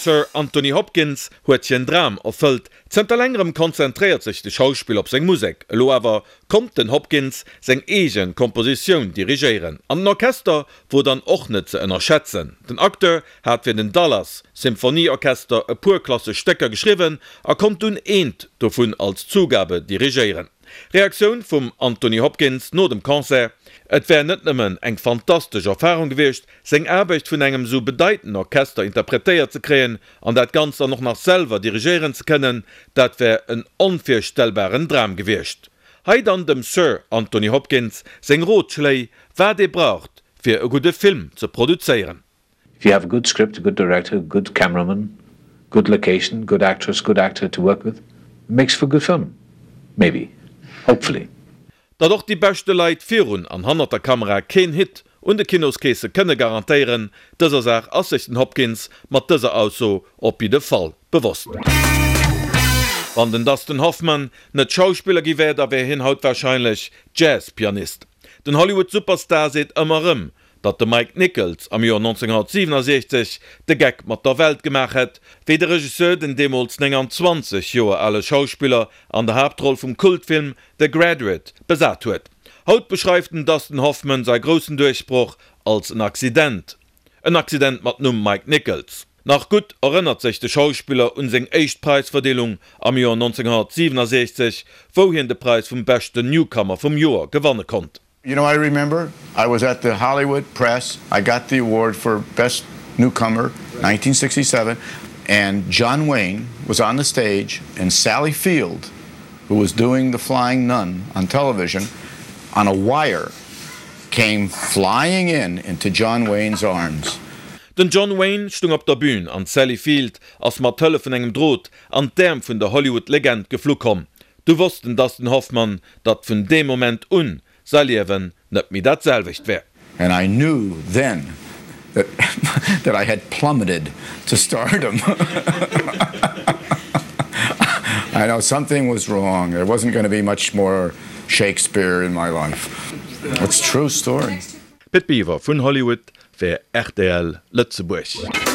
Sir Anthony Hopkins huet hien Dram erfëllt. Zënter längerem konzentréiert sech de Schauspiller op seng Musek. Elo awer konnt den Hopkins seng eege Kompositioun dirigéieren. An den Orchester wor dann och net ze ënnerschätzen. Den Acteur hat fir den Dallas Symphonieorchester e puer klassesch Stécker geschriwwen a konnt dunn eent dovun als Zugabe dirigéieren. Reaktioun vum Anthony Hopkins no dem Concert, Et wär net nëmmen eng fantastesch Erfarung gewiescht, seng Aarbecht vun engem sou bedeitenden Orchester interpretéiert ze kréien an dat Ganzt dann och nach selwer dirigéieren ze kënnen, dat wär en onvirstellbaren Dram gewiescht. Hei dann dem Sir Anthony Hopkins seng Rotschléi, wat ee braucht fir e gudde Film ze produzéieren. If you have a good script, a good director, a good cameraman, good location, good actress, good actor to work with, it makes for a good film. Maybe. Hopefully. Datt och déi beschte Leit virun an hannert der Kamera keen Hit un de Kinoskeesse kënne garantéieren, dëser Saach ass sech den Hopkins mat dëser Ausso op jidde Fall bewosst. Wann den Dustin Hoffman net Schauspiller gi wär, da wär hien haut warscheinlech Jazz-Pianist. Den Hollywood-Superstar seet ëmmer erëm, Datt de Mike Nichols am Joer 1967 de Geck mat der Welt gemaach hätt, wéi de Regisseur den deemools 29 Joer ale Schauspiller an der Haaptroll vum Kultfilm The Graduate besat huet. Haut beschreift den Dustin Hoffman säi groussen Duerchbroch als en Accident. En Accident mat Numm Mike Nichols. Nach gutt erënnert sech de Schauspiller un seng éischt Präisverdeelung am Joer 1967, wou hien de Präis vum beschten Newcomer vum Joer gewanne konnt. You know I remember I was at the Hollywood press I got the award for best newcomer 1967 and John Wayne was on the stage and Sally Field who was doing the flying nun on television on a wire came flying in into John Wayne's arms. Den John Wayne stung op der Bühn an d'Sally Field ass mat Hëllef vun engem Drot an d'Äerm vun der Hollywood-Legend geflu komm. Du wosst den Dustin Hoffmann, datt vun deem Moment un säi Liewen net méi dat selwecht wär. And I knew then that that I had plummeted to stardom. I know something was wrong, there wasn't gonna be much more Shakespeare in my life. It's true story. Pit Biwer vun Hollywood fir rtl Lëtzebuerg.